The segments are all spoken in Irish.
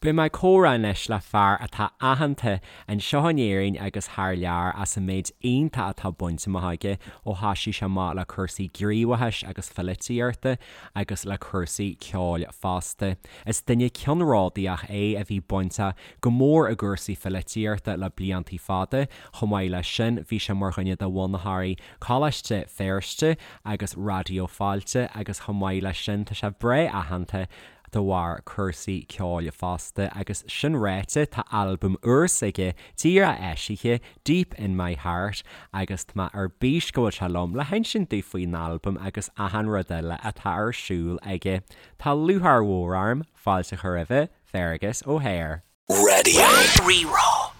Beidh mé ag comhrá anois le fear atá aitheanta anseo in Éirinn agus thar lear as an méid iontach atá bainte amach aige ó thoisigh sé amach le cúrsaí gníomhachais agus pholaitíochta agus le cúrsaí ceoil fosta. Is duine ceannródaíoch é a bhí bainteach go mór i gcúrsaí pholaitíochta le bliantaí fada. Chomh maith leis sin bhí sé mar dhuine de bhunaitheoirí Coláiste Feirste agus Raidió Fáilte agus chomh maith leis sin tá sé breá aitheanta de bharr cúrsaí ceoil fosta agus sin ráite tá albam úr s'aige díreach eisithe, Deep In My Heart, agus tá mé ar bís go bhfuil sé liom le hinsint dúinn faoin albam agus achan rud eile atá ar siúl aige. Tá lúcháir mhór orm fáilte a chur roimhe, Fearghas Ó hEithir. Radio Rí-Rá.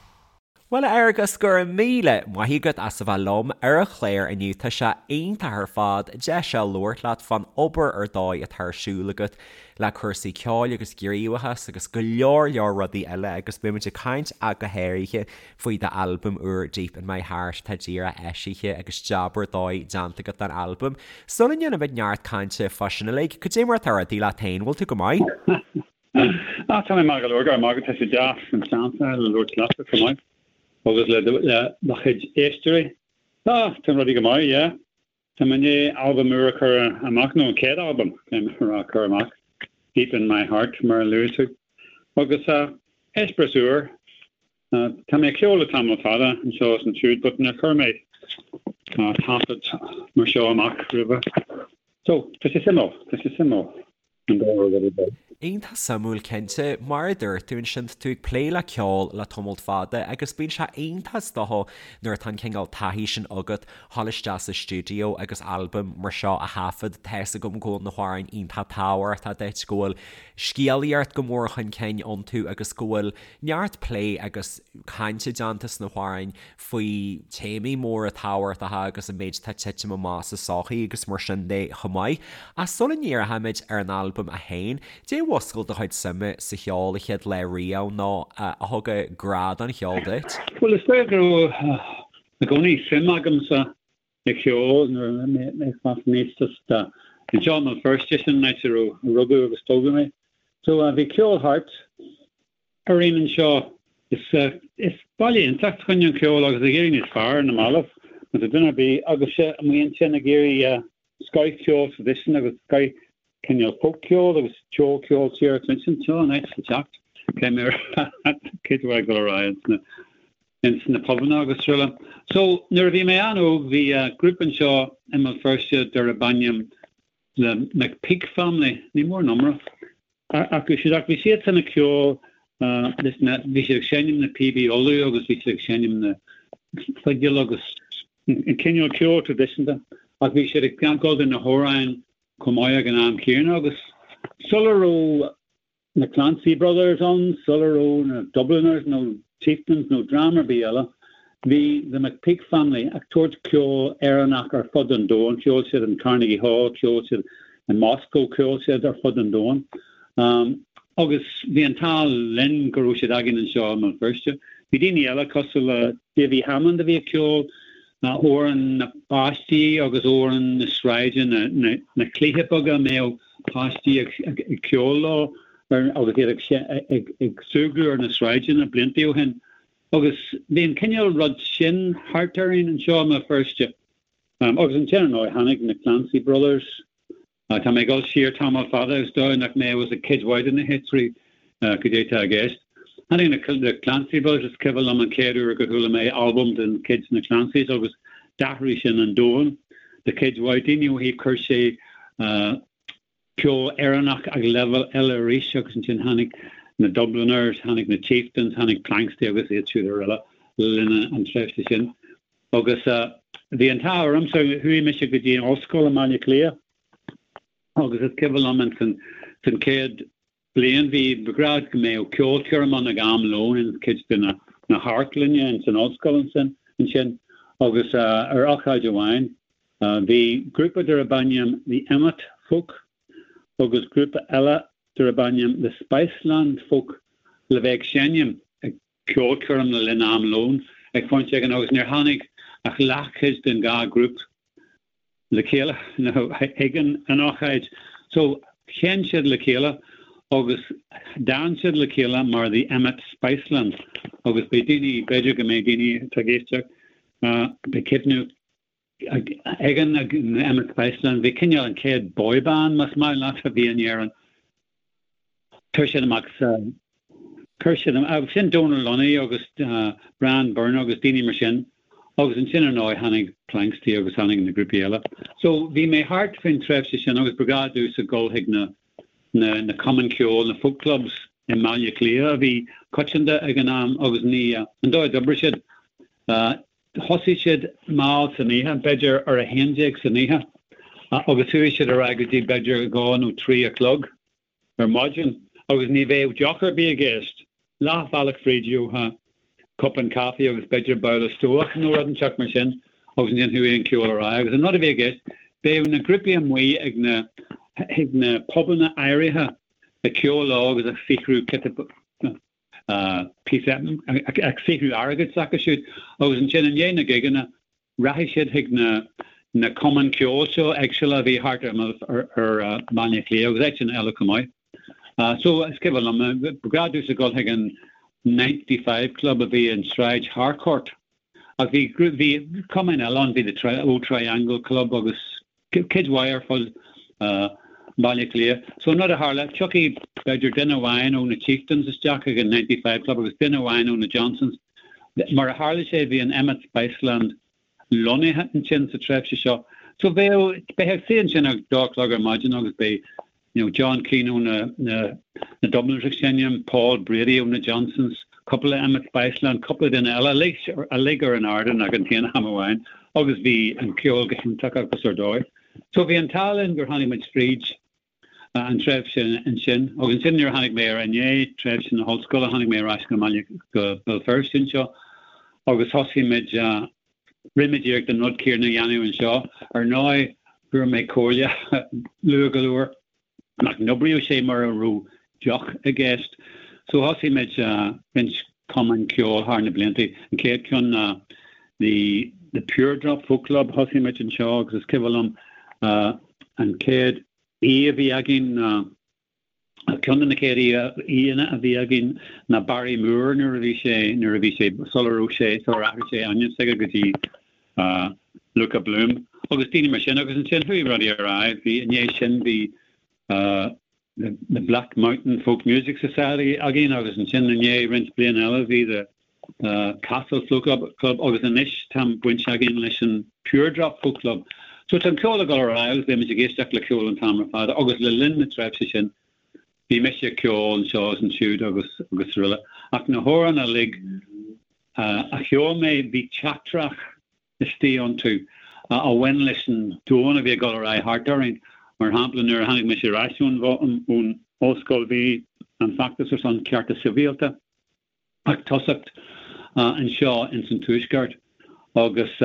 Bhuel a Fhearghais, go raibh míle maith agat as a bheith liom ar an chlár inniu. Tá sé iontach ar fad deis a labhairt leat fán obair ar dóigh atá ar siúl agat le cúrsaí ceoil agus gníomhachas agus go leor leor rudaí eile agus beidh muid ag caint ach go háirithe faoi d'albam úr Deep In My Heart atá díreach eisithe agus jab ar dóigh déanta agat don albam. Sula ndéanaimid neart cainte fá sin uilig, cad é mar atá rudaí leat féin, bhfuil tú go maith? Ah, tá mé maith go leor, go raibh maith agat, tá sé deas an seans a fháil le labhairt leatsa chomh maith agus le do chuid éisteoirí. Ah, tá rudaí go maith, yeah. Tá mé i ndiaidh albam úr a chur amach, nó an chéad albam, caithfidh mé a rá, a chur amach, Deep In My Heart, mar a luaigh tú. Agus eh, eispéireas úr. Tá mé ag ceol le tamall fada anseo is ansiúd, but níor chuir mé taifead mar seo amach roimhe. So, tá sé suimiúil, tá sé suimiúil. an dá rud ar dóigh. Iontach suimiúil cinnte. Mar a dúirt tú ansin, tá tú ag plé le ceol le tamalt fada agus bíonn sé iontach is dócha nuair atá an cineál taithí sin agat dhul isteach sa stiúideo agus albam mar seo a thaifead. Tá's agam go bhfuil na hamhráin iontach tábhachtach duit, go bhfuil scéalaíocht go mór chun cinn iontu agus go bhfuil neart plé agus cainte déanta sna hamhráin faoi téamaí móra tábhachtacha agus an méid atá ag titim amach sa sochaí agus mar sin de chomh maith. Ach sula ndíreochaimid ar an albam é féin, caidé a mhúscail do chuid suime sa cheol an chéad lá riamh nó a thug an grá don cheol duit? Bhuel, is dóigh go raibh i gcónaí suim agamsa i cheol nuair a bhí mé ag fás aníos just anseo i mBéal Feirste, sin an áit a raibh a rugadh agus tógadh mé. So bhí ceol thart orainn anseo. Is is baile iontach fá choinne an cheoil agus ag éirí níos fearr ar na mallaibh má tá duine ar bith agaibhse amuigh ansin ag iarraidh scoth-cheol traidisiúnta agus scoth cineál folk-cheol agus ceol ceol tíre a chluinstin, seo an áit le teacht. Cé mé cé ag dul ar aghaidh ins na pubanna agus araile. So nuair a bhí mé an-óg bhí grúpa anseo i mBéal Feirste darb ainm The McPeak Family, ní mór an iomrá acu siúd ach bhí siadsan ag ceol leis na, bhí siad ag seinm na píobaí Uladh agus bhí siad ag seinm na fidil agus an cineál ceol traidisiúnta ach bhí siad ag gabháil do na hamhráin chomh maith ag an am céanna agus sula raibh na Clancy Brothers ann, sula raibh na Dubliners nó Chieftains nó dream ar bith eile, bhí The McPeak Family ag tabhairt ceol Éireannach ar fud an domhain, cheol siad in Carnegie Hall, cheol siad i Moscow, cheol siad ar fud an domhain. Agus bhí an t-ádh linn go raibh siad againn anseo i mBéal Feirste. Bhí daoine eile cosúil le Davy Hammond a bhí ag ceol amhráin na bpáistí agus amhráin na sráide, na cluichí beaga a mbeadh páistí ag ceol leo agus iad ag súgradh ar na sráideanna blianta ó shin. Agus bhí an cineál rud sin thart orainn anseo i mBéal Feirste. Agus ansin, ar ndóigh, tháinig na Clancy Brothers. Tá mé ag dul siar tamall fada is dóigh nach mbeadh a fhios ag cuid mhaith de na héisteoirí cad é atá i gceist. Tháinig na Clancy Brothers, is cuimhin liom an chéad uair go chuala mé albam den chuid na Clancys agus d'athraigh sin an domhan do chuid mhaith daoine ó thaobh chuir sé ceol Éireannach ag leibhéal eile arís agus ansin tháinig na Dubliners, tháinig na Chieftains, tháinig Planxty agus iad siúd araile le linn an tréimhse sin. Agus bhí an t-ádh ormsa, chuaigh mise go dtí an ollscoil i mBaile Átha Cliath agus is cuimhin liom in san san chéad bliain bhí ba ghnách go mbeadh ceolchoirm ann ag am lóin in cuid de na na hamharclainne in san ollscoil ansin ansin agus ar ócáid amháin bhí grúpa darb ainm The Emmet Folk agus grúpa eile darb ainm The Spiceland Folk le bheith ag seinm ag ceolchoirm le linn am lóin ag pointe éigin agus níor tháinig ach leathchuid den dhá ghrúpa le chéile nó ag an ócáid. So sheinn siad le chéile Agus d'fhan siad le chéile mar The Emmet Spiceland agus beidh daoine, b'fhéidir go mbeidh daoine atá ag éisteacht, beidh cuimhne ag an Emmet Spiceland, bhí cineál an chéad boy band, más maith leat, a bhí in Éirinn. Chuir siad amach sa, chuir siad amach, sin Donal Lunny agus Brian Byrne agus daoine mar sin agus ansin ar ndóigh tháinig Planxty agus tháinig na grúpaí eile. So bhí mé thart faoin tréimhse sin agus ba ghnáth domhsa dul chuig na, na, na cumainn ceoil, na folk clubs i mBaile Átha Cliath a bhí coitianta ag an am agus ní, an dóigh a d'oibrigh siad, thosaigh siad mall san oíche, b'fhéidir ar a 11 san oíche agus chuaigh siad ar aghaidh go dtí b'fhéidir 2 nó 3 a chlog. ar maidin agus ní bheadh deoch ar bith i gceist. Leath bhealach fríd gheofá cupán caife agus b'fhéidir babhla stobhach nó rud inteacht mar sin agus ansin chuaigh an ceol ar aghaidh agus an rud a bhí i gceist, bheadh na grúpaí amuigh ag na ag na pubanna áirithe ag ceol leo agus ag saothrú píosa ag saothrú airgid s'acu siúd agus ansin i ndiaidh na gigeanna Rachaidh siad chuig na na cumainn ceoil seo éagsúla a bhí thart ar ar Bhaile Átha Cliath agus áiteanna eile chomh maith. So is cuimhin liom, ba ghnáth domhsa dul chuig an 95 Club a bhí in Sráid Harcourt. Ach bhí bhí cumainn eile ann, bhí the Old Triangle Club agus cuid mhaith ar fud Bhaile Átha Cliath. So an rud a tharla, tiocfaidh b'fhéidir duine amháin ó na Chieftains isteach chuig an 95 Club agus duine amháin ó na Johnsons. Mar a tharla sé, bhí an Emmet Spiceland lonnaithe ansin sa tréimhse seo. So bheadh, beifeá ag suí ansin ag dó a chlog ar maidin agus beidh you know, John Keane ó na, na, na Dubliners ag seinm, Paul Brady ó na Johnsons, cúpla Emmet Spiceland, cúpla duine eile, uilig, uilig ar an ardán ag an t-aon am amháin agus bhí an ceol go hiontach agus ar dóigh. So bhí an t-ádh linn gur tháinig muid fríd an tréimhse ansin agus ansin nuair a tháinig mé ar i ndiaidh tréimhse na hollscoile tháinig mé ar ais go mbaile go Béal Feirste anseo agus thosaigh muid Rinne muid iarracht an rud céanna a dhéanamh anseo. Ar ndóigh, fuair mé comhairle luath go leor nach n-oibreodh sé mura raibh deoch i gceist. So thosaigh muid roinnt cumainn ceoil thar na blianta. An chéad cheann ná the the Pure Drop Folk Club. Thosaigh muid anseo agus is cuimhin liom an chéad aoi a bhí againn ná Ceann de na chéad aíonna a bhí againn ná Barry Moore nuair a bhí sé, nuair a bhí sé, sula raibh sé, sular athraigh sé a ainm s'aige go dtí Luka Bloom agus daoine mar sin agus ansin chuaigh rudaí ar aghaidh. Bhí, i ndiaidh sin bhí The Black Mountain Folk Music Society againn agus ansin i ndiaidh roinnt bliain eile bhí The Castle Folk Club agus anois tá baint againn leis an Pure Drop Folk Club. So tá an ceol ag dul ar aghaidh agus beidh muid ag éisteacht le ceol an t-am ar fad agus le linn na tréimhse sin bhí mise ag ceol anseo is ansiúd agus agus araile. Ach na hamhráin uilig a cheol mé bhí teachtaireacht istigh iontu a bhain leis an domhan a bhí ag dul ar aghaidh thart orainn. Mar shampla nuair a tháinig mise ar ais ón ón ollscoil bhí an feachtas ar son cearta sibhialta ag tosacht anseo ins an Tuaisceart agus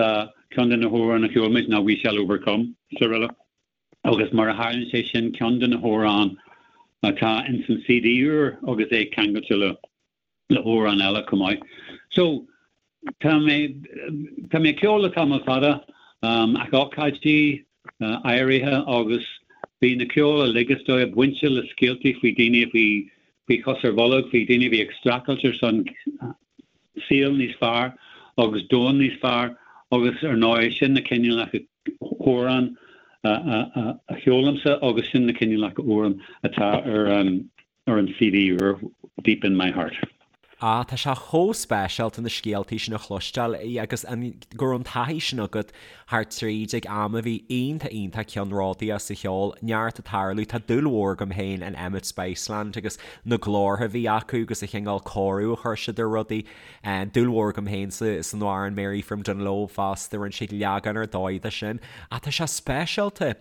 ceann de na hamhráin a cheol muid ná We Shall Overcome is araile agus mar a tharlaíonn sé sin ceann de na hamhráin atá ins an CD úr agus é ceangailte le le hamhrán eile chomh maith. So tá mé tá mé ag ceol le tamall fada ag ócáidí áirithe agus bhí na ceol uilig is dóigh bainte le scéaltaí faoi daoine a bhí faoi chos ar bholg, faoi daoine a bhí ag streachailt ar son saol níos fearr agus domhan níos fearr agus ar ndóigh sin na cineálacha amhrán a cheolaimse agus sin na cineálacha amhrán atá ar an ar an CD úr Deep In My Heart. Ah, tá sé chomh speisialta na scéaltaí sin a chloisteáil agus an, go raibh an taithí sin agat thart tríd ag am a bhí iontach iontach ceannródaíoch sa cheol, neart ag tarlú, tá dúil mhór agam féin in Emmet Spiceland agus na glórtha a bhí acu agus an chineál cóiriú a chuir siad ar rudaí. Dúil mhór agam féin sa san amhrán Mary from Dungloe fosta, rinne siad leagan ar dóigh de sin. Ach tá sé speisialta.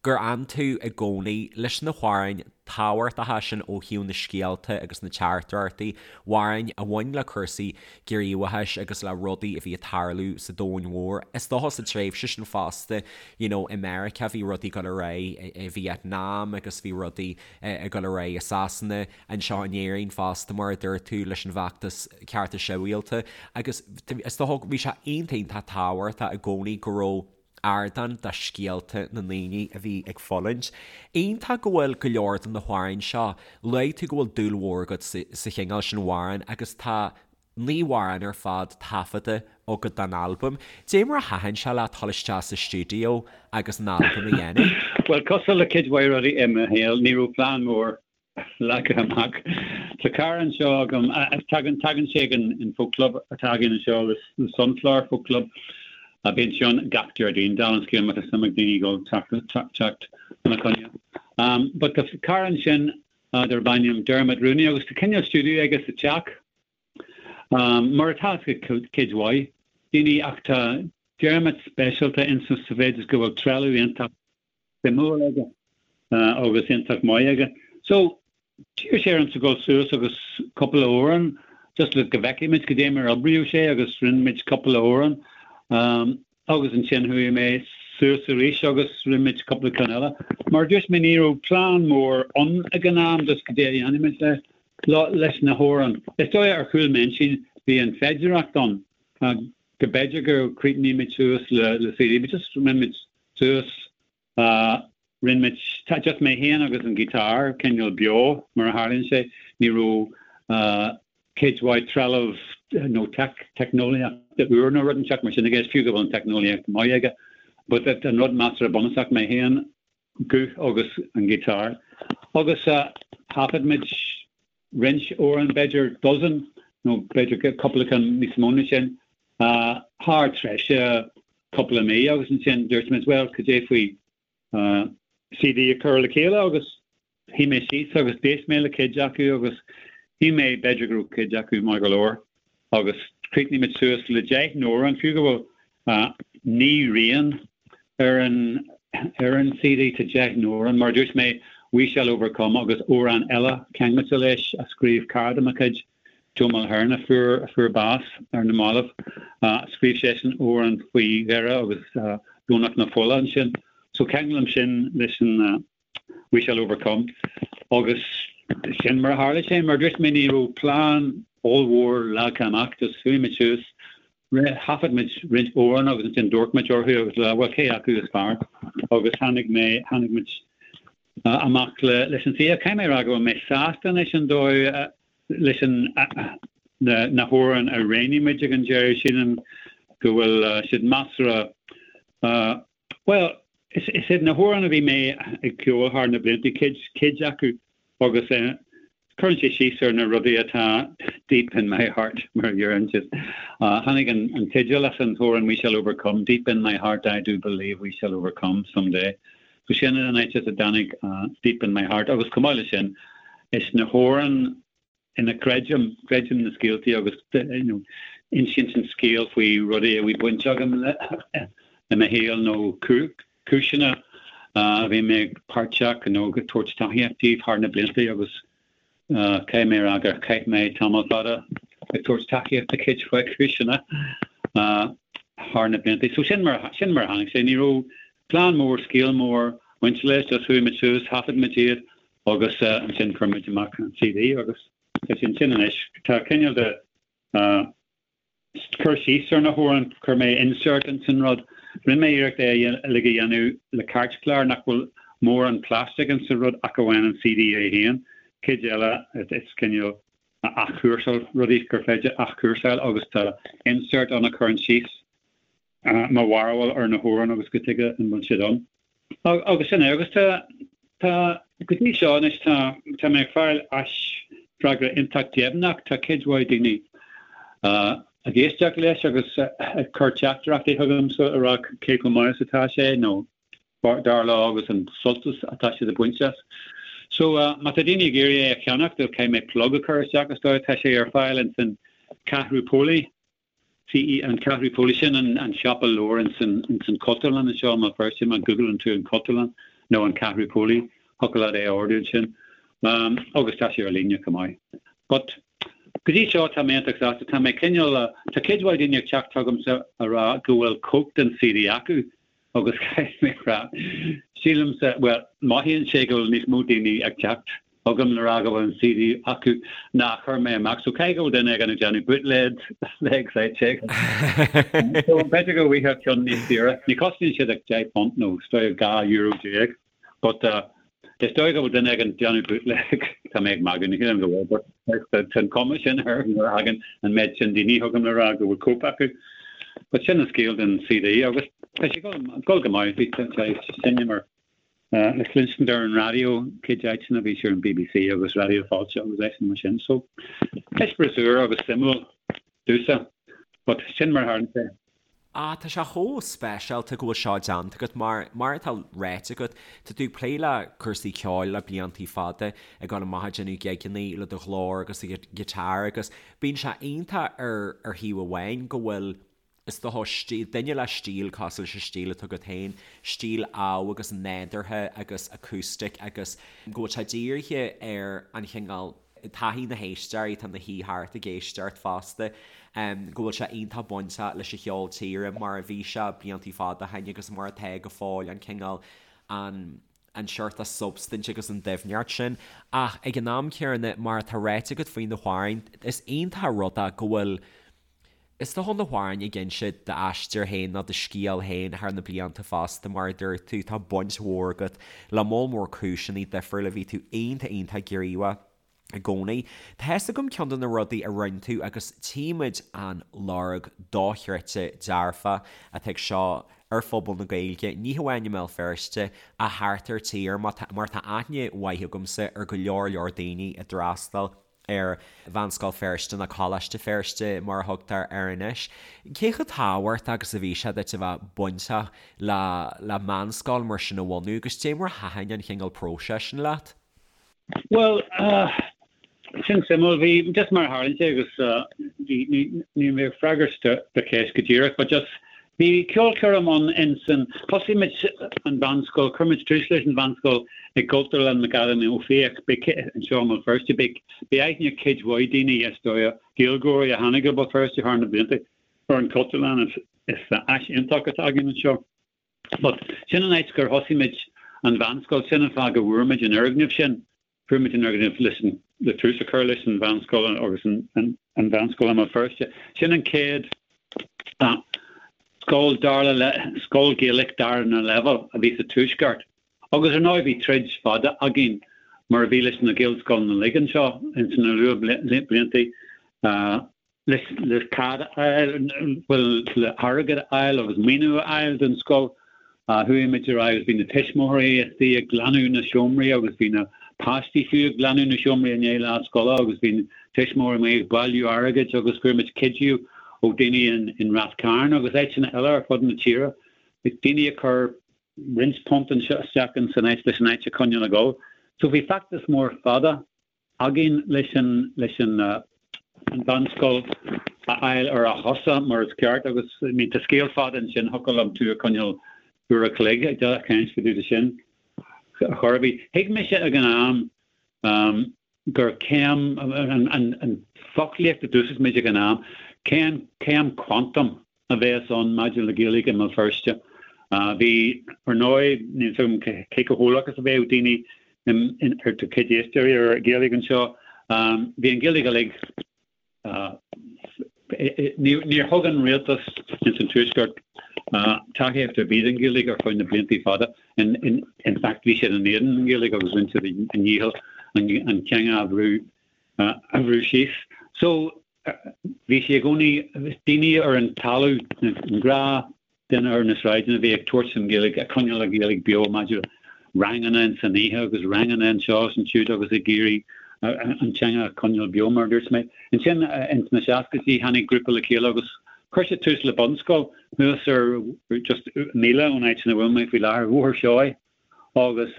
gur fhan tú i gcónaí leis na hamhráin tábhachtacha sin ó thaobh na scéalta agus na teachtaireachtaí, amhráin a bhain le cúrsaí gníomhachais agus le rudaí a bhí ag tarlú sa domhan mhór. Is dócha sa tréimhse sin fosta, you know, i Meiriceá bhí rudaí ag dul ar aghaidh i Vietnam agus bhí rudaí ag dul ar aghaidh i Sasana, anseo in Éirinn fosta mar a dúirt tú leis an bhfeachtas cearta sibhialta agus is dócha bhí sé iontach iontach tábhachtach i gcónaí go raibh. ardán do scéalta na ndaoine a bhí ag fulaingt. Iontach go bhfuil go leor de na hamhráin seo, luaigh tú go bhfuil dúil mhór agat sa chineál sin amhrán agus tá 9 amhrán ar fad taifeadta agat don albam. Dé mar a thaitin sé leat dul isteach sa stiúideo agus an albam a dhéanamh? Bhuel, cosúil le cuid mhaith rudaí i mo shaol, ní raibh plean mór leagtha amach. Tá cara anseo agam, tagann, tagann sé ag an folk club atá againn anseo, the Sunflower Folk Club, a bíonn sé ann gach Déardaoin, dála an scéil má tá suim ag daoine dul teacht, teacht chun a choinne. But tá cara ansin darb ainm Dermot Rooney agus tá cineál stiúideo aige sa teach, mar atá ag cuid mhaith daoine ach tá Dermot speisialta insa sa mhéid is go bhfuil trealamh iontach suimiúil aige agus iontach maith aige. So, d'iarr sé ormsa dul suas agus cúpla amhrán just le go bhfeicfidh muid cad é mar a oibríodh sé agus rinne muid cúpla amhrán agus ansin chuaigh mé suas arís agus rinne muid cúpla ceann eile. Mar a dúirt mé ní raibh plean mór ann ag an am just cad é a dhéanfaidh muid le leis na hamhráin. Is dóigh ar chúl m'intinn bhí an féidireacht ann go b'fhéidir go críochnódh muid suas le CD but just rinne muid suas. Rinne muid, just mé féin agus an guitar, cineál beo mar a tharlaíonn sé. Ní raibh cuid mhaith trealamh nó teicneolaíochta úr nó rud inteacht mar sin i gceist, fiú go bhfuil an teicneolaíocht maith aige. But an rud measartha bunúsach, mé féin, guth agus an guitar. Agus thaifead muid roinnt amhrán, b'fhéidir dozen nó b'fhéidir cúpla ceann níos mó ná sin, thar tréimhse cúpla mí agus ansin dúirt muid, bhuel, cad é faoi CD a chur le chéile agus shuigh mé síos agus d'éist mé le cuid acu agus shíl mé b'fhéidir go raibh cuid acu maith go leor agus chríochnaigh muid suas le 10 n-amhrán, fiú go bhfuil 9 rian ar an ar an CD tá 10 n-amhrán, mar a dúirt mé, We Shall Overcome agus amhrán eile ceangailte leis a scríobh cara de mo chuid, Joe Mulhern, a fuair a fuair bás ar na mallaibh. Scríobh seisean amhrán faoi Dhoire agus Domhnach na Fola ansin. So ceanglaim sin leis an We Shall Overcome agus sin mar a tharla sé. Mar a dúirt mé ní raibh plean ollmhór leagtha amach, just chuaigh muid suas, thaifead muid roinnt amhrán agus ansin d'amharc muid orthu agus le bhuel cé acu is fearr agus tháinig mé, tháinig muid amach le, leis an CD. Caithfidh mé a rá go bhfuil mé sásta leis an dóigh, leis an, na, na hamhráin a roghnaigh muid ag an deireadh, sílim go bhfuil siad measartha, Bhuel, is iad na hamhráin a bhí mé ag ceol thar na blianta, cuid, cuid acu, agus cuireann sé síos ar na rudaí atá deep in my heart, mar a deireann siad. Tháinig an teideal as an t-amhrán We Shall Overcome, Deep in my heart I do believe we shall overcome someday. So sin an áit as a dtáinig Deep in my heart agus chomh maith leis sin, is na hamhráin ina gcreidim, creidim na scéaltaí agus you know insíonn an scéal faoi rudaí a bhí baint agam le i mo shaol nó cúiseanna a bhí mé páirteach nó ag tabhairt tacaíocht díobh thar na blianta agus caithfidh mé a rá gur chaith mé tamall fada ag tabhairt tacaíocht do chuid mhaith cúiseanna thar na blianta. So sin mar sin mar a tháinig sé. Ní raibh plean mór, scéal mór bainte leis, just chuaigh muid suas, thaifead muid iad Agus ansin chuir muid amach an CD agus tá sé ansin anois. Tá cineál de cur síos ar na hamhráin, chuir mé insert ins an rud. Rinne mé iarracht é uilig a dhéanamh le cairtchlár nach bhfuil mórán plastic ins an rud ach amháin an CD é féin. Cuid eile is cineál athchúrsáil, rudaí gur féidir athchúrsáil agus tá insert ann a chuireann síos mo bharúil ar na hamhráin agus cad chuige an bhfuil siad ann. Agus sin é. Agus tá, tá, go dtí seo anois tá, tá mé ag fáil aisfhreagra iontach deimhneach. Tá cuid mhaith daoine ag éisteacht leis agus ag cur teachtaireachtaí chugamsa a rá cé chomh maith is atá sé nó dar leo agus an sult atá siad ag baint as. So má tá daoine ag iarraidh é a cheannacht, caithfidh mé plug a chur isteach is dóigh. Tá sé ar fáil ins an Ceathrú Póilí. CE, An Ceathrú Póilí, sin an siopa leabhar ins an Chultúrlann anseo i mBéal Feirste, má Googleann tú an Chultúrlann nó an Ceathrú Póilí, thiocfadh leat é a ordú ansin. Agus tá sé ar líne chomh maith. But go dtí seo tá mé iontach sásta, tá mé cineál, tá cuid mhaith daoine ag teacht chugamsa a rá go bhfuil cóip den CD acu agus caithfidh mé a rá, sílimse, bhuel, mothaíonn sé go bhfuil níos mó daoine ag teacht. Chugam le rá go bhfuil an CD acu ná chuir mé amach so caithfidh go bhfuil duine éigin ag déanamh bootleg legs I'd say. So b'fhéidir go bhfaighfeá ceann níos saoire. Ní chosnaíonn siad ach €10 nó is dóigh €12 but is dóigh go bhfuil duine éigin ag déanamh bootleg tá mé ag magadh ní shílim go bhfuil but tá an cuma sin air nuair a thagann an méid sin daoine chugam le rá go bhfuil cóip acu. But sin an scéal den CD agus tá sé ag dul go maith bhí sé seinm ar le cluinstin ar an raidió cuid áiteanna bhí sé ar an BBC agus Raidió Fáilte agus áiteanna mar sin. So, eispéireas úr agus suimiúil domhsa, but sin mar a tharla sé. Ah, tá sé chomh speisialta go bhfuil seo déanta agat mar, mar atá ráite agat, tá tú ag plé le cúrsaí ceoil le bliantaí fada, ag dul amach ag déanamh gigeanna le do ghlór agus do ghiotár agus bíonn sé iontach ar ar thaobh amháin go bhfuil Is dócha, stíl, duine le stíl cosúil leis an stíl atá agat féin, stíl amh agus nádúrtha agus acoustic agus go bhfuil sé dírithe ar an chineál taithí na héisteoirí atá ina shuí thart ag éisteacht fosta, go bhfuil sé iontach bainteach leis an cheol tíre mar a bhí sé bliantaí fada ó shin agus mar atá go fóill, an cineál, an an seort substaint agus an doimhneacht sin. Ach ag an am céanna, mar atá ráite agat faoi na hamhráin, is iontach an rud é go bhfuil, Is dócha na hamhráin ag inse d'aistear féin nó do scéal féin thar na blianta fosta, mar a dúirt tú, tá baint mhór agat le moll mór cúiseanna difriúla, bhí tú iontach iontach gníomhach i gcónaí. Tá fhios agam ceann de na rudaí a rinne tú agus tchímid an lorg dochreidte dearfach atá ag seo ar phobal na Gaeilge, ní hamháin i mBéal Feirste ach thart ar tír, mar tá aithne mhaith agamsa ar go leor leor daoine a d'fhreastail ar Mheánscoil Feirste nó Coláiste Feirste mar a thugtar air anois. Cé chomh tábhachtach agus a bhí sé duit a bheith bainteach le le meánscoil mar sin a bhunú agus dé mar a thaitin an chineál próiseas sin leat? Bhuel, sin suimiúil. Bhí, just mar a tharlaíonn sé agus bhí, ní, níl mé ag freagairt do do cheist go díreach but just Bhí ceolchoirm ann insan, thosaigh muid an mheánscoil, chuir muid tús leis an mheánscoil i gCultúrlann McAdam Ó Fiaich, anseo i mBéal Feirste. Beidh aithne ag cuid mhaith daoine, is dóigh, Gaeilgeoirí a tháinig go Béal Feirste thar na blianta ar an Chultúrlann, is áis iontach atá againn anseo. But sin an áit gur thosaigh muid an mheánscoil, sin an fáth go bhfuair muid an fhoirgneamh sin. Fuair muid an fhoirgneamh leis an, le tús a chur leis an mheánscoil agus an mheánscoil i mBéal Feirste. Sin an chéad scoil dara, scoil Ghaelach darna leibhéal a bhí sa Tuaisceart. Agus ar ndóigh bhí troid fada againn mar a bhí leis na Gaelscoileanna uilig anseo ins na luathbhlianta. Le cead a fháil, bhuel, le hairgead a fháil agus maoiniú a fháil don scoil, chuaigh muid ar aghaidh agus bhí na tuismitheoirí istigh ag glanadh na seomraí agus bhí na páistí fiú ag glanadh na seomraí i ndiaidh lá scoile agus bhí na tuismitheoirí amuigh ag bailiú airgid agus fuair muid cuidiú ó daoine in Rath Cairn agus áiteanna eile ar fud na tíre, daoine a chuir roinnt punt anseo isteach in san áit leis an áit a choinneáil ag dul. So bhí feachtas mór fada againn leis an leis an an mheánscoil a fháil ar a chosa mar is ceart agus I mean tá scéal fada ansin thiocfadh liom tú a choinneáil uair a chloig ag caint fá dtaobh de sin ar chor ar bith. Thuig mise ag an am um, gur céim an, an, an foclaíocht a d'úsáid muid ag an am, céim, céim quantum a bheas ann maidir le Gaeilge i mBéal Feirste. Bhí, ar ndóigh, níl 's agam cé chomh heolach is a bheadh daoine ar do chuid éisteoirí ar Ghaeilge anseo, bhí an Ghaeilge uilig, níor thug an rialtas ins an Tuaisceart tacaíocht ar bith don Ghaeilge ar feadh na blianta fada. In fact, bhí siad in éadan an Ghaeilge agus rinne siad a ndícheall an teanga a bhrú síos. So, Bhí sé i gcónaí, daoine ar an talamh, an gnáth duine ar na sráideanna a bhí ag tabhairt an Ghaeilge, ag coinneáil an Ghaeilge beo maidir le ranganna in san oíche agus ranganna anseo is ansiúd agus ag iarraidh an teanga a choinneáil beo mar a dúirt mé. Ansin ins na seascaidí tháinig grúpa le chéile agus chuir siad tús le bunscoil thuas ar just míle ón áit ina bhfuil mé faoi láthair, Bhóthar Seoighe agus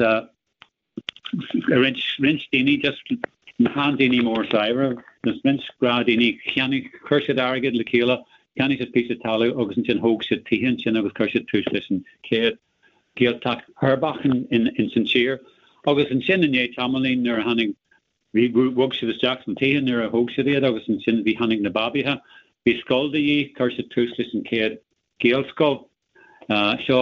roinnt, roinnt daoine, just na seandaoine mór saibhre, just roinnt gnáthdhaoine, cheannaigh, chuir siad airgead le chéile, cheannaigh siad píosa talamh agus ansin thóg siad tithe ansin agus chuir siad tús leis an chéad Ghaeltacht uirbeach in, in, ins an tír. Agus ansin i ndiaidh tamaillín nuair a tháinig, bhí, bhog siad isteach sna tithe nuair a thóg siad iad agus ansin bhí, tháinig na babaithe, bhí scoil de dhíth, chuir siad tús leis an chéad Ghaelscoil. Seo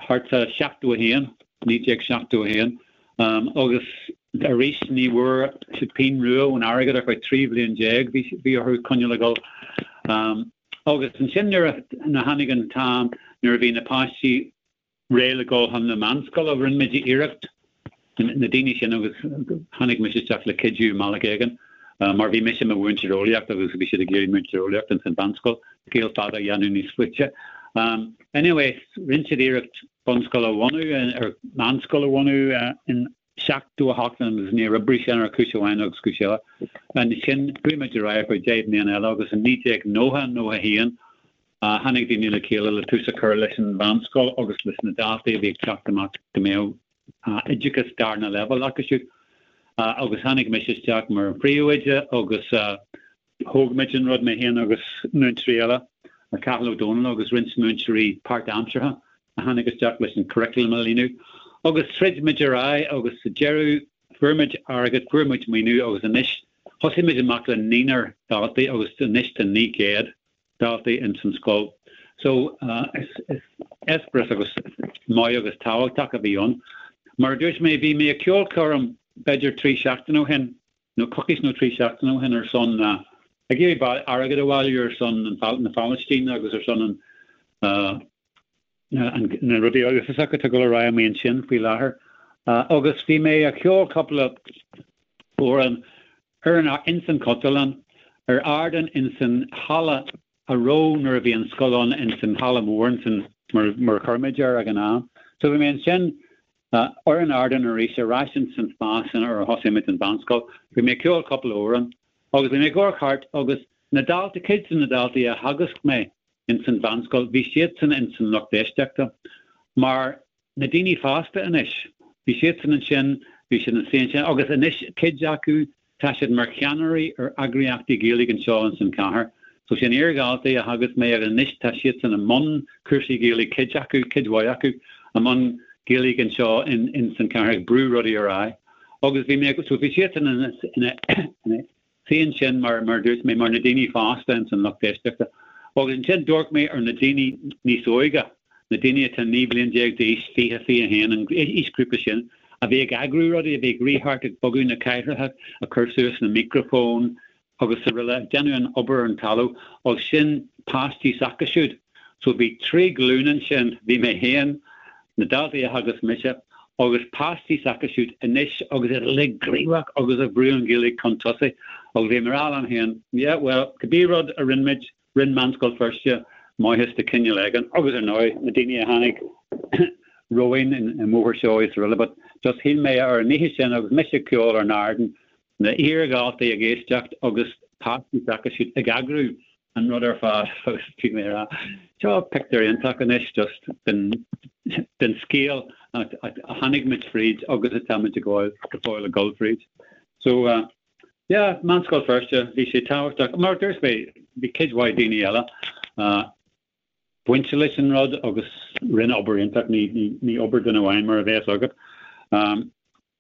thart sa 71, 1971, agus. Arís ní bhfuair siad pingin rua ón airgead ar feadh 13 bhliain, bhí orthu coinneáil ag dul. Agus ansin nuair a tháinig an t-am nuair a bhí na páistí réidh le dul chun na meánscoile, rinne muid iarracht, na daoine sin agus tháinig mise isteach le cuidiú i mbealach éigin mar bhí mise i mo mhúinteoir eolaíochta agus bhí siad ag iarraidh múinteoir eolaíochta ins an mheánscoil, scéal fada a dhéanamh níos faide. Anyway, rinne siad iarracht bunscoil a bhunú, ar meánscoil a bhunú in 78 agus níor oibrigh sin ar chúis amháin agus cúis eile. Ansin chuaigh muid ar aghaidh ar feadh 10 mbliana eile agus in 1990, 91 tháinig daoine le chéile le tús a chur leis an mheánscoil agus leis na daltaí a bhí ag teacht amach go mbeadh oideachas darna leibhéal acu siúd. Agus tháinig mise isteach mar an phríomhoide agus Thóg muid an rud, mé féin agus múinteoirí eile, Cathal Ó Dónaill agus roinnt múinteoirí páirtaimseartha a tháinig isteach leis an curriculum a líonadh. Agus throid muid ar aghaidh agus sa deireadh fuair muid airgead, fuair muid maoiniú agus anois thosaigh muid amach le naonúr daltaí agus anois tá 900 daltaí ins an scoil. So is eispéireas agus maith agus tábhachtach a bhí ann. Mar a dúirt mé, bhí mé ag ceolchoirm b'fhéidir 3 seachtaine ó shin nó coicís nó 3 seachtaine ó shin ar son ag iarraidh airgead a bhailiú ar son na Palaistíne agus ar son an na rudaí uafásacha atá ag dul ar aghaidh amuigh ansin faoi láthair. Agus bhí mé ag ceol cúpla amhrán ar an ins an Chultúrlann ar ardán ins an halla a raibh nuair a bhí an scoil ann ins an halla mór ansin mar a chuir muid air ag an am. So bhí mé ansin ar an ardán arís ar ais ins an spás sin ar thosaigh muid an mheánscoil. Bhí mé ag ceol cúpla amhrán agus bhí mé ag amharc thart agus na daltaí, cuid de na daltaí a theagasc mé ins an mheánscoil, bhí siadsan ins an lucht éisteachta mar na daoine fásta anois, bhí siadsan ansin, bhí siad ina suí ansin agus anois cuid acu tá siad mar cheannairí ar eagraíochtaí Gaeilge anseo ins an chathair. So sin iardhaltaí a theagasc mé agus anois tá siadsan i mbun cúrsaí Gaeilge, cuid acu, cuid mhaith acu, i mbun Gaeilge anseo in ins an chathair ag brú rudaí ar aghaidh. Agus bhí mé, so bhí siadsan ina, ina, ina suí ansin mar, mar a dúirt mé, mar na daoine fásta ins an lucht éisteachta. Agus ansin d'amharc mé ar na daoine níos óige, na daoine atá 19 bliain d'aois, 20, 21, an aoisghrúpa sin, a bhí ag eagrú rudaí, a bhí ag rith thart ag bogadh na cathaoireacha, ag cur suas na micreafóin agus araile, ag déanamh an obair ar an talamh, agus sin páistí s'acu siúd. So bhí 3 glúin ansin, bhí mé féin, na daltaí a theagasc mise, agus páistí s'acu siúd anois agus iad uilig gníomhach agus ag brú an Ghaeilge chun tosaigh agus bhí mé ag rá liom féin, yeah, well, cibé rud a rinne muid, Rinne Meánscoil Feirste maitheas de chineál éigin agus ar ndóigh na daoine a tháinig romhainn i mBóthar Seoighe is araile but just shíl mé ar an oíche sin agus mise ag ceol ar an ardán, na hiardhaltaí ag éisteacht agus páistí s'acu siúd ag eagrú an rud ar fad agus bhí mé ag rá seo pictiúr iontach anois just den den scéal a tháinig muid fríd agus atá muid ag gabháil go fóill ag dul fríd. So uh, Yeah, Meánscoil Feirste, bhí sé tábhachtach. Mar a dúirt mé, bhí cuid mhaith daoine eile bainte leis an rud agus rinne obair iontach, ní obair duine amháin mar a bheas agat.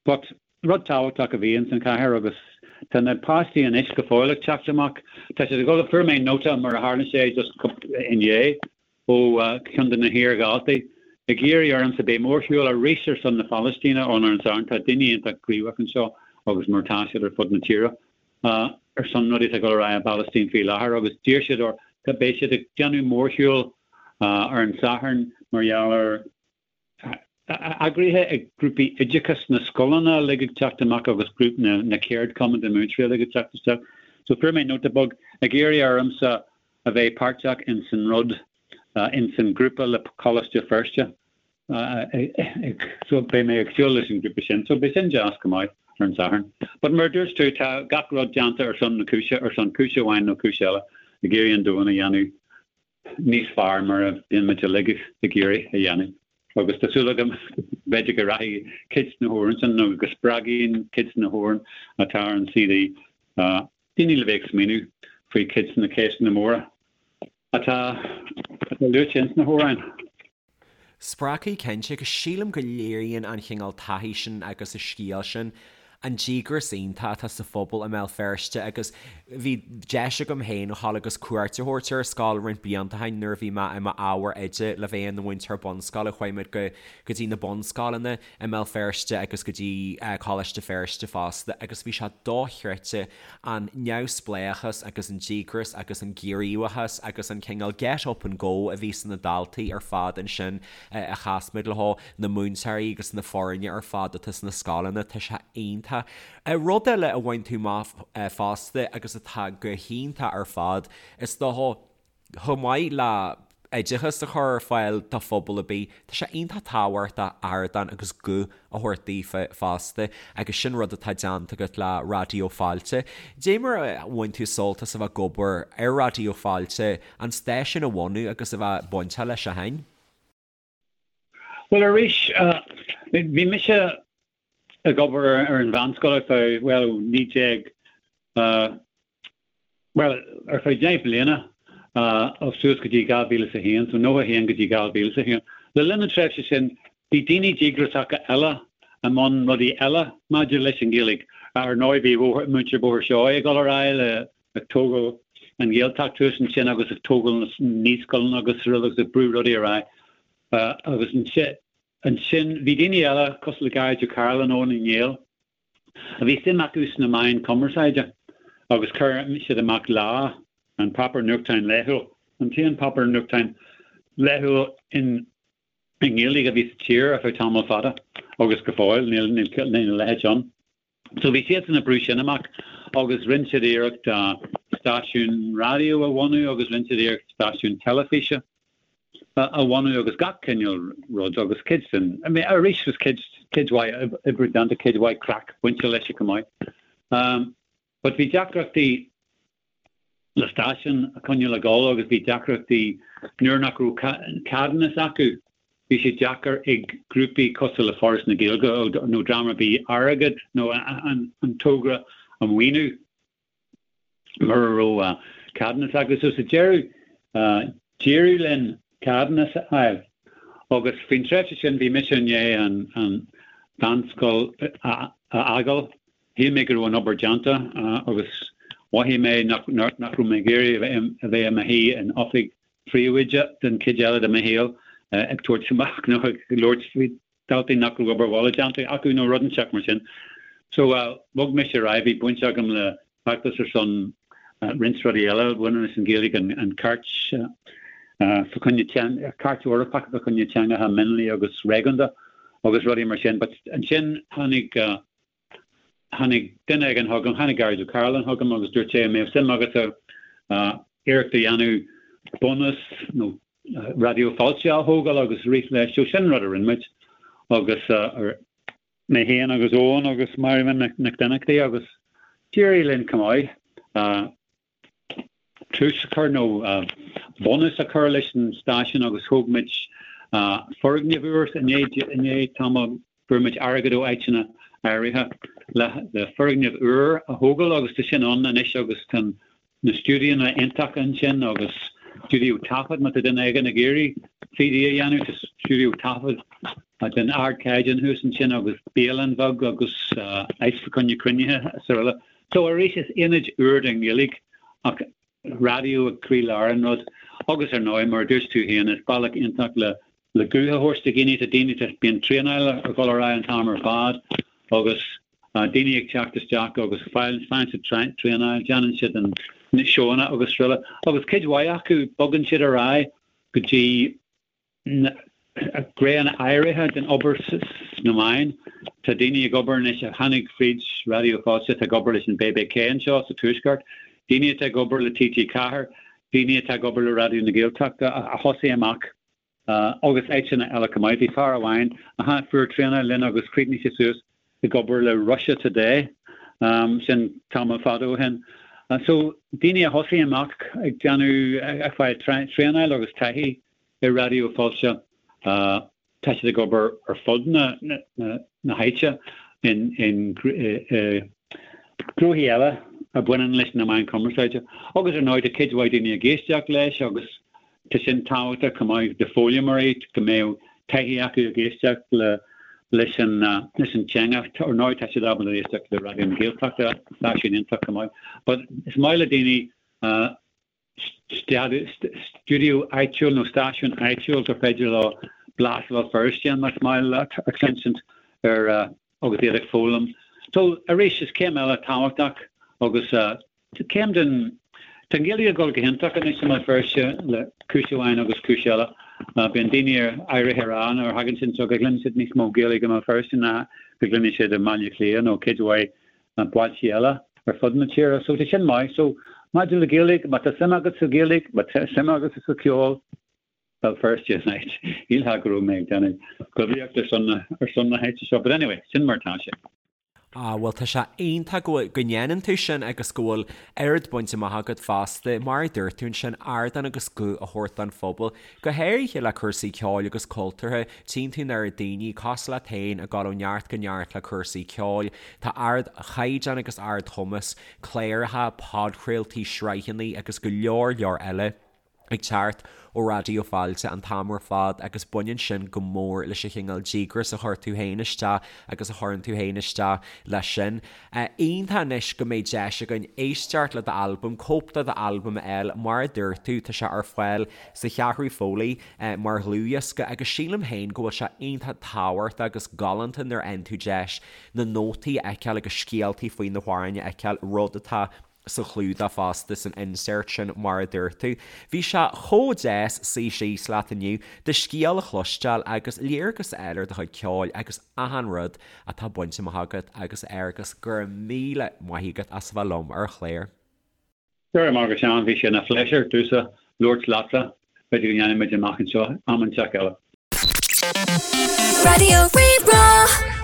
But rud tábhachtach a bhí ins an chathair agus tá na páistí anois go fóill ag teacht amach. Tá siad ag dul, fuair mé nóta mar a tharla sé just inné ó cheann de na hiardhaltaí ag iarraidh ormsa beidh mórshiúl arís ar son na Palaistíne ann ar an Satharn. Tá daoine iontach gníomhach anseo agus mar atá siad ar fud na tíre ar son rudaí atá ag dul ar aghaidh i bPalaistín faoi láthair agus d'iarr siad or beidh siad ag déanamh mórshiúl ar an Satharn mar gheall ar Eagraithe ag grúpaí oideachais na scoileanna uilig ag teacht amach agus grúpa na ceardchumann de mhúinteoirí uilig ag teacht isteach. So fuair mé nóta beag ag iarraidh ormsa a bheith páirteach ins an rud, ins an grúpa le Coláiste Feirste. So beidh mé ag siúl leis an grúpa sin. So beidh sin deas go maith ar an Satharn. But mar a dúirt tú, tá gach rud déanta ar son na cúise, ar son cúise amháin nó cúis eile, ag iarraidh an domhan a dhéanamh níos fearr mar a bhíonn muid uilig ag iarraidh a dhéanamh. Agus tá súil agam b'fhéidir go rachaidh cuid de na hamhráin sin nó go spreagfaidh cuid de na hamhráin atá ar an CD daoine le bheith ag smaoineamh faoi cuid de na ceisteanna móra atá luaite ins na hamhráin. Spreagfaidh cinnte, agus sílim go léiríonn an chineál taithí sin agus an scéal sin. An díograis iontach atá sa phobal i mBéal Feirste agus bhí deis agam féin a dhul agus cuairt a thabhairt ar an scoil roinnt blianta ó shin nuair a bhí mé i m'ábhar oide le bheith ina mhúinteoir bunscoile. Chuaigh muid go go dtí na bunscoileanna i mBéal Feirste agus go dtí Coláiste Feirste fosta agus bhí sé dochreidte an neamhspleáchas agus an díograis agus an gníomhachas agus an cineál get up and go a bhí sna daltaí ar fad ansin a chas muid leo, na múinteoirí agus na foirne ar fad atá sna scoileanna, tá sé iontach. Rud eile a bhain tú amach fosta agus atá go hiontach ar fad, is dócha, chomh maith le oideachas a chur ar fáil do phobal ar bith, tá sé iontach tábhachtach ardán agus guth a thabhairt daofa fosta agus sin rud atá déanta agat le Raidió Fáilte. Dé mar a bhain tú sult as a bheith ag obair ar Raidió Fáilte, an stáisiún a bhunú agus a bheith bainteach leis ó shin? Bhuel arís, bhí mise ag obair ar an mheánscoil ar feadh, bhuel, ó 19, bhuel, ar feadh 10 bliana, suas go dtí 2001, so 91 go dtí 2001. Le linn na tréimhse sin, bhí daoine díograsacha eile i mbun rudaí eile maidir leis an Ghaeilge. Ar ndóigh, bhí muintir Bhóthar Seoighe ag dul ar aghaidh le ag tógáil an Ghaeltacht thuas ansin agus ag tógáil na naíscoileanna agus araile agus ag brú rudaí ar aghaidh. Agus ansin bhí daoine eile cosúil le Gearóid Ó Cairealláin, Eoin Ó Néill, a bhí suim acu sna meáin cumarsáide agus chuir siad amach Lá, an páipéar nuachtáin laethúil, an t-aon páipéar nuachtáin laethúil in i nGaeilge a bhí sa tír ar feadh tamall fada agus go fóill níl a leithéid ann. So bhí siadsan ag brú sin amach agus rinne siad iarracht stáisiún raidió a bhunú agus rinne siad iarracht stáisiún teilifíse a bhunú agus gach cineál rud agus cuid den, I mean arís was cuid, cuid mhaith oibre déanta, cuid mhaith craic bainte leis chomh maith. Um, but bhí deacrachtaí le stáisiún a choinneáil ag dul agus bhí deacrachtaí nuair nach raibh ceadúnas acu, bhí sé deacair ag grúpaí cosúil le Foras na Gaeilge nó dream ar bith airgead nó an togra a mhaoiniú mura raibh ceadúnas acu. So sa deireadh, d'éirigh linn ceadúnas a fháil agus faoin tréimhse sin bhí mise i ndiaidh an mheánscoil a fhágáil. Shíl mé go raibh an obair déanta agus mhothaigh mé nach raibh mé ag iarraidh a bheith i mo shuí in oifig phríomhoide den chuid eile de mo shaol ag tabhairt amach nó ag labhairt faoi dhaltaí nach raibh obair bhaile déanta acu nó rud inteacht mar sin. So bhog mise ar aghaidh, bhí baint agam le feachtas ar son roinnt rudaí eile a bhaineann leis an Ghaeilge, an Cairt fá choinne, Cairt Eorpach fá choinne teangacha mionlaigh agus réigiúnda agus rudaí mar sin. But ansin tháinig Tháinig duine éigin chugam, tháinig Gearóid Ó Cairealláin chugam agus dúirt sé an mbeadh suim agatsa iarracht a dhéanamh bunús nó Raidió Fáilte a thógáil agus rith leis. So sin an rud a rinne muid agus mé féin agus Eoin agus Máire Nic Donnchadha agus d'éirigh linn chomh maith. tús a chur nó bunús a chur leis an stáisiún agus thóg muid foirgneamh úr i ndiaidh tamaill. Fuair muid airgead ó áiteanna áirithe le foirgneamh úr a thógáil agus tá sin ann anois agus tá na stiúidíonna iontacha ansin agus stiúideo taifead má tá duine éigin ag iarraidh CD a dhéanamh tá stiúideo taifead den ardchaighdeán thuas ansin agus bialann bheag agus áit fá choinne cruinnithe is araile. So arís is aonad úr don Ghaeilge ach raidió ag croílár an rud agus ar ndóigh mar a dúirt tú féin is bealach iontach le le guth a thabhairt do dhaoine, tá daoine tá bíonn traenáil ag dul ar aghaidh an t-am ar fad agus daoine ag teacht isteach agus faigheann siad traenáil, déanann siad an na seóanna agus araile agus cuid mhaith acu bogann siad ar aghaidh go dtí gnéanna áirithe den obair sna meáin. Tá daoine ag obair anois a tháinig fríd Raidió Fáilte atá ag obair leis an BBK anseo sa Tuaisceart, daoine atá ag obair le TG4, daoine atá ag obair le Raidió na Gaeltachta a thosaigh amach agus áiteanna eile chomh maith. Bhí fear amháin a fuair traenáil linn agus chríochnaigh sé suas ag obair le Russia Today, sin tamall fada ó shin. So daoine a thosaigh amach ag déanamh, ag fáil traenáil agus taithí i Raidió Fáilte, tá siad ag obair ar fud na háite in gnóthaí eile a bhaineann leis na meáin chumarsáide. Agus ar ndóigh tá cuid mhaith daoine ag éisteacht leis agus tá sin tábhachtach chomh maith do foghlaimeoirí go mbeadh taithí acu ag éisteacht le. Leis an leis an teanga, ar ndóigh tá siad ábalta éisteacht le Raidió na Gaeltachta, stáisiún iontach chomh maith. But is maith le daoine stiúideo áitiúil nó stáisiún áitiúil gur féidir leo blas Bhéal Feirste más maith leat a chluinsint ar agus iad ag foghlaim. So arís is céim eile tábhachtach agus céim den Tá an Ghaeilge ag dul go hiontach anois i mBéal Feirste le cúis amháin agus cúis eile. Bíonn daoine áirithe ag rá nuair a thagann siad anseo go gcluineann siad níos mó Gaeilge i mBéal Feirste ná go gcluineann siad i mBaile Átha Cliath nó cuid mhaith bailte eile ar fud na tíre. So tá sin maith. So maidir le Gaeilge, má tá suim agat sa Ghaeilge, má tá suim agat sa cheol, Béal Feirste an áit. Shílfeá go raibh mé ag déanamh poiblíocht ar son ar son na háite seo, but anyway, sin mar atá sé. Ah, bhuel tá sé iontach go bhfuil, go ndéanann tú sin agus go bhfuil oiread bainte amach agat fosta, mar a dúirt tú ansin, ardán agus guth a thabhairt don phobal, go háirithe le cúrsaí ceoil agus cultúrtha, tchíonn tú an oiread daoine, cosúil leat féin, ag dul ó neart go neart le cúrsaí ceoil, tá ardchaighdeán agus ardchumas, cláracha, podchraoltaí, sraitheanna agus go leor leor eile. ag teacht ó Raidió Fáilte an t-am ar fad agus baineann sin go mór leis an chineál díograis a chuir tú féin isteach agus a chuireann tú féin isteach leis sin. Iontach anois go mbeidh deis againn éisteacht le d'albam, cóip de d'albam a fháil, mar a dúirt tú, tá sé ar fáil sa Cheathrú Foley mar dhlúthdhiosca agus sílim féin go bhfuil sé iontach tábhachtach agus galánta nuair a fhaigheann tú deis na nótaí a fheiceáil agus scéaltaí faoi na hamhráin a fheiceáil, rud atá sa chlúdach fosta, san insert sin mar a dúirt tú. Bhí sé chomh deas suí síos leat inniu, do scéal a chloisteáil agus léargas a fháil ar do chuid ceoil agus achan rud atá bainte amach agat agus Fhearghus, go raibh míle maith agat as a bheith liom ar an chlár. Go raibh maith agat Seán, bhí sé ina phléisiúr domhsa labhairt leatsa, b'fhéidir go ndéanfaidh muid amach anseo am inteacht eile. Raidió Rí-Rá.